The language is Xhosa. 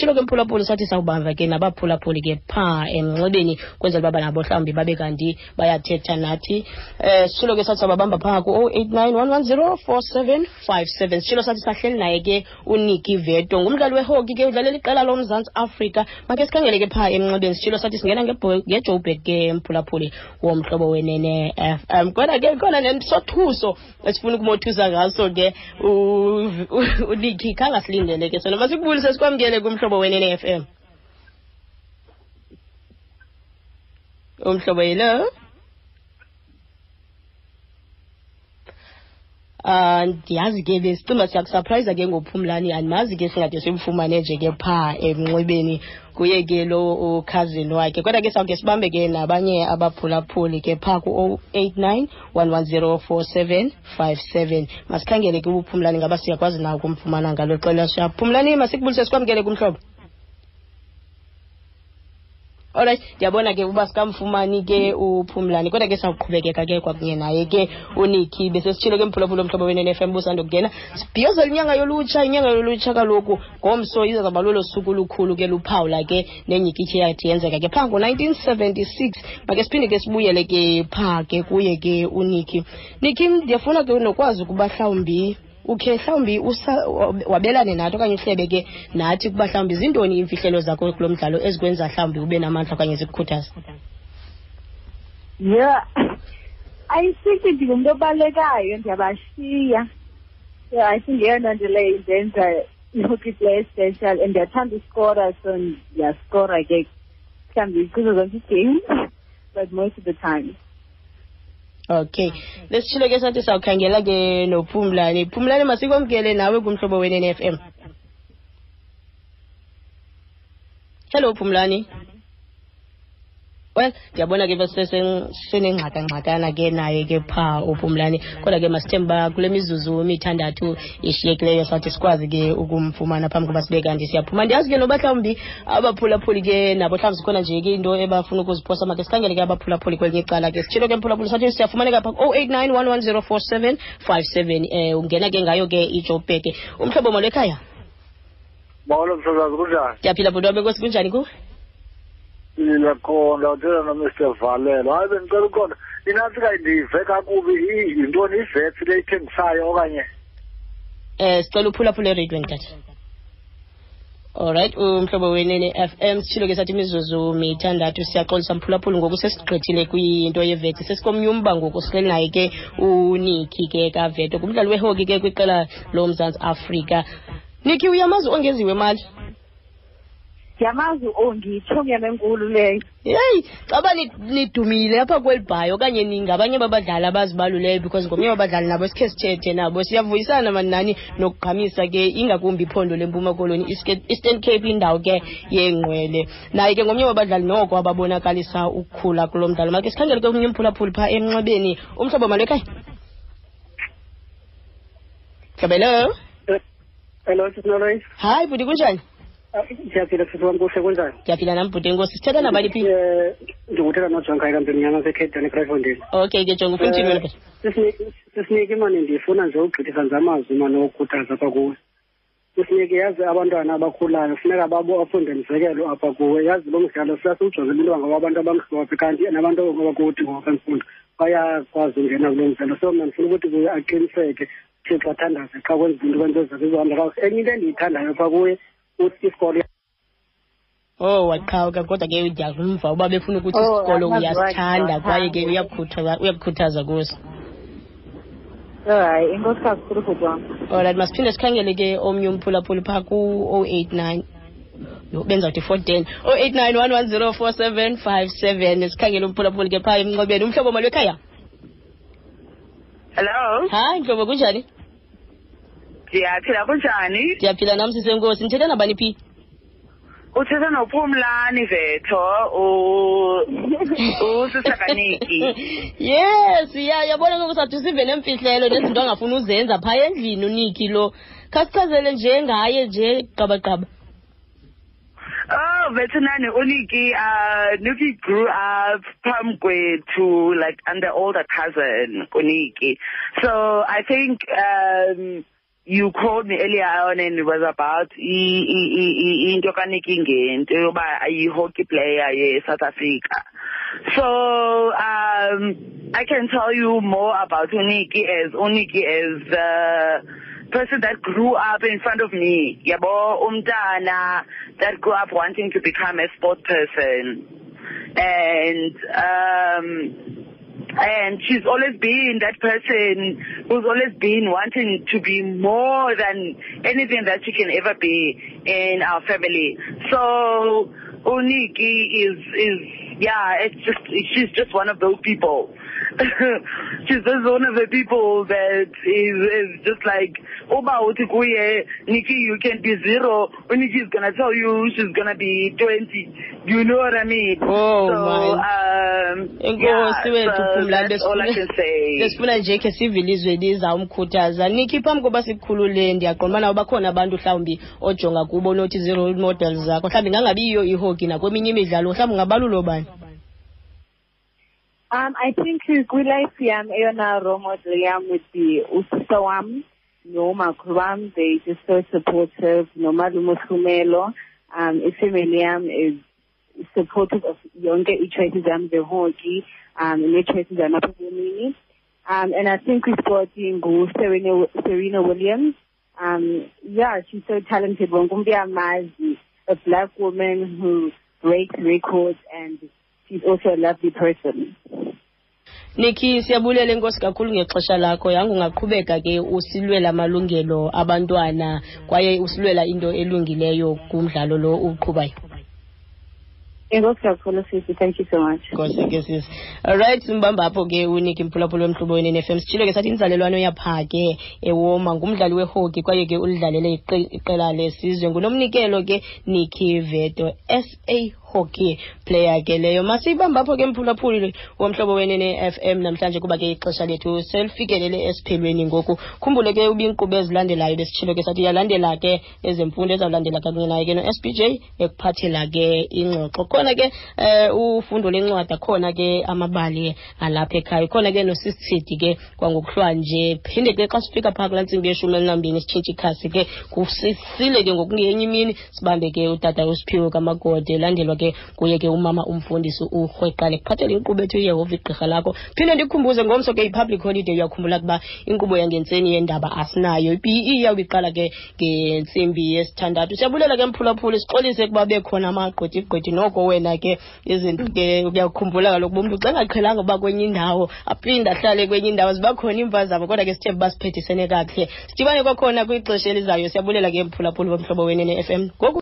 Sitshilo ke mphulaphuli sathi sawubamba ke nabaphulaphuli ke phaa emnxebeni kwenzela uba nabo mhlawumbi babe kanti bayathetha nathi. Sitshilo ke sathi sawubabamba phaa ku-089 110 4757. Sitshilo sathi sahleli naye ke uNiki Veto, ngumdlali wehoki ke, udlalela iqela loMzantsi Afrika. Make sikhangele ke phaa emnxebeni. Sitshilo sathi singena ngeJoburg ke, mphulaphuli woMhlobo Wenene FM, kodwa ke khona nesothuso esifuna ukumothusa ngaso ke uNiki, khange asilindele ke sona. Masikubulise sikwamkele kuMhlobo Wenene FM. Umhlobo, hello. Ndiyazi ke besicinga siyakusurprise ke ngoPhumlani, andimazi ke singade simfumane nje ke phaa emnxebeni, kuye ke lo ukhazini wakhe, kodwa ke sawuke sibambe ke nabanye abaphulaphuli ke phaa ku-089 110 4757. Masikhangele ke uPhumlani, ngaba siyakwazi na ukumfumana ngalo xesha. Phumlani, masikubulise sikwamkele kumhlobo. Alright, ndiyabona ke uba sikamfumani ke uPhumlani, kodwa ke sawuqhubekeka ke kwakunye naye ke uNiki. Besesitshilo ke mphulaphula oMhlobo Wenene FM busandokungena, sibhiyozela inyanga yolutsha. Inyanga yolutsha kaloku ngomso izawuba lolo suku lukhulu ke, luphawula ke nenyikitshi yathi yenzeka ke phaa ngo-1976. Make siphinde ke sibuyele ke phaa ke kuye ke uNiki. Niki, ndiyafuna ke nokwazi ukuba mhlawumbi ukhe mhlawumbi wabelane nathi okanye uhlebe ke nathi ukuba mhlawumbi zintoni iimfihlelo zakho kulo mdlalo ezikwenza mhlawumbi ube namandla okanye zikukhuthaza. Yeah, I think ndingumntu obalekayo, ndiyabashiya. So I think yeyona nto leyo indenza i-hockey player special, and ndiyathanda uskora, so ndiyaskora ke mhlawumbi kuzo zonke ii-games, but most of the time. Okay, lesitshilo ke sathi sawukhangela ke noPhumlani. Phumlani, masikwamkele nawe kuMhlobo Wenene FM. Hello Phumlani. Well, ndiyabona ke senengxakangxakana ke naye ke phaa uPhumlani, kodwa ke masithembe uba kule mizuzu mithandathu ishiyekileyo sathi sikwazi ke ukumfumana phambi koba sibe kanti siyaphuma. Ndiyazi ke noba mhlawumbi abaphulaphuli ke nabo mhlawumbi zikhona nje ke into ebafuna ukuziphosa. Make sikhangele ke abaphulaphuli kwelinye icala ke. Sitshilo ke mphulaphuli sathi siyafumaneka pha 089 110 4757. Ungena ke ngayo ke iJoburg. Umhlobo, molo ekhaya. Molo msasazi, kunjani? Ndiyaphila bhuti wam, enkosi. Kunjani kuwe? Ndiyakhonda, uthetha noMr Valelo. Hayi, bendicela uqonda inantsika, ndive kakubi, yintoni ivets le ithengisayo okanye? Sicela uphulaphula ereyidweni tata. Alright, uMhlobo Wenene FM, sitshilo ke sathi imizuzu mithandathu. Siyaxolisa mphulaphula, ngoku sesigqithile kwinto yevetsi, sesikomnye umba ngoku. Sihleli naye ke uNiki ke kaVeto, ngumdlali wehoki ke kwiqela loMzantsi Afrika. Niki, uyamazi Ongeziwe Mali? Ndiyamazi uOngi, itshomi yam enkulu leyo. Yeyi, caba nidumile apha kweli bhayi okanye ningabanye babadlali abazibaluleyo, because ngomnye wabadlali nabo sikhe sithethe nabo. Siyavuyisana mani nani nokugqamisa ke ingakumbi iphondo leMpuma Koloni, Eastern Cape, indawo ke yeengqwele. Naye ke ngomnye wabadlali noko ababonakalisa ukukhula kulo mdlalo. Make sikhangele ke omnye umphulaphuli phaa emnxebeni. Umhlobo, malo ekhaya. Mhlobo, hello. Hello, Sisi. Hayi bhuti, kunjani? Ndiyaphila sisi wam, kuhle, kunjani? Ndiyaphila nam bhuti, enkosi. Sithetha nabani phi? Ndikuthetha noJonga kaMpemnyama seCape eKraaifontein. Okay ke Jonga, ufuna uthini wena bhuti? Sisiniki mani, ndifuna nje ugqithisa nje amazwi mani okukhuthaza apha kuwe. Sisiniki, yazi abantwana abakhulayo funeka bafunde mzekelo apha kuwe. Yazi lo mdlalo siyasiwujongela into yoba ngabantu abamhlophe, kanti nabantu abakuthi ngokwemfundo bayakwazi ungena kulo mdlalo. So mna ndifuna ukuthi kuye aqiniseke, Thixo, athandaze xa kwenza into, kwenza zakhe izohamba kakuhle. Enye into endiyithandayo phaa kuye uthi isikolo Oh, waqhawuka, kodwa ke ndiyamva uba befuna ukuthi Oh, isikolo amazwi wakhe uyasithanda kwaye ke ndiyawathanda. uyakukhuthaza kuso. Hayi, inkosi kakhulu bhuti wam. Alright, masiphinde sikhangele ke omnye umphulaphuli phaa ku-089, yho, benzawuthi 410, 089 110 4757. Sikhangele umphulaphuli ke phaa emnxebeni. Umhlobo, malo ekhaya. Hello. Hayi mhlobo, kunjani? Ndiyaphila, kunjani? Ndiyaphila nam sisenkosi. Ndithetha nabani phi? Uthetha noPhumlani Vetho, usista kaNiki. Yes, ya yabona ngoku sathi sive nemfihlelo nezinto angafuni uzenza phaa endlini uNiki lo. Khasichazele nje ngaye nje qabaqaba. Oh, Vetonani, uNiki, Niki grew up phambi kwethu, like I'm the older cousin, uNiki. So I think, You called me earlier on and it was about into kaNiki ngento yoba ayi-hockey player ye-South Africa. So I can tell you more about uNiki as uNiki as the person that grew up in front of me. Yabo, umntana that grew up wanting to become a sport person. And she's always been that person who's always been wanting to be more than anything that she can ever be in our family. So uNiki is yeah, it's just, she's just one of those people. She's just one of the people that is just like, uba uthi kuye, Nikki, you can be 0. Nikki is going to tell you she's going to be 20. You know what I mean? Oh, so, man. Enkosi wethu Phumlani, that's all I can say. Besifuna nje khe sive ilizwe lizawumkhuthaza. Nikki, phambi koba sikukhulule, ndiyaqonda ubana bakhona abantu mhlawumbi ojonga kubo nothi zii-role models zakho. Mhlawumbi ingangabiyiyo ihockey nakweminye imidlalo, mhlawumbi ungabalula obani? I think kwi-life yam eyona role model yam would be usista wam nomakhulu wam. They just so supportive. Nomalume uHlumelo. Ifamily yam is supportive of yonke ii-choices zam zehockey, nee-choices zam apha ebomini. And I think kwisport ngu-Serena Williams. Yeah, she's so talented. Wonke umntu uyamazi, a black woman who breaks records, and she's also a lovely person. Nikki, siyabulela, enkosi kakhulu ngexesha lakho. Yanga ungaqhubeka ke usilwela amalungelo abantwana kwaye usilwela into elungileyo kumdlalo lo uqhubayo. Enkosi kakhulu sisi, thank you so much. Nkosi ke sisi. Alright, simbamba apho ke uNiki, mphulaphula womhlobo wenene FM. Sitshilo ke sathi inzalelwano yapha ke eWoma, ngumdlali wehockey kwaye ke ulidlalele iqela lesizwe. Ngunomnikelo ke Nikki Veto, SA hockey player ke leyo. Masiyibamba apho ke mphulaphuli womhlobo wenene FM namhlanje, kuba ke ixesha lethu selifikelele esiphelweni ngoku. Khumbule ke uba iinkqubo ezilandelayo besitshilo ke sathi iyalandela ke ezemfundo, ezawulandela kunye naye ke no-SBJ ekuphathela ke ingxoxo. Khona ke ufundo lencwadi, khona ke amabali alapha ekhaya, khona ke nosisithidi ke kwangokuhlwa nje. Phinde ke xa sifika phaa kulaa ntsimbi ye-12 sitshintshe ikhasi ke kusisile ke ngokungenye imini, sibambe ke utata uSiphiwe kaMagode, elandelwa ke kuye ke umama umfundisi uRhweqale kuphathele inkqubo ethu uYehova igqirha lakho. Phinde ndikukhumbuze ngomso ke i-public holiday, uyakhumbula ukuba inkqubo yangentseni yendaba asinayo. I-PE iyawube iqala ke ngentsimbi yesithandathu. Siyabulela ke mphulaphuli, sixolise ukuba bekhona amagqwethe noko wena ke izinto ke uyakhumbula kaloku uba umntu xa engaqhelanga uba kwenye indawo aphinde ahlale kwenye indawo, ziba khona iimpazamo, kodwa ke sithembe uba siphethisene kakuhle. Sidibane kwakhona kwixesha elizayo. Siyabulela ke mphulaphuli bomhlobo wenene FM ngoku.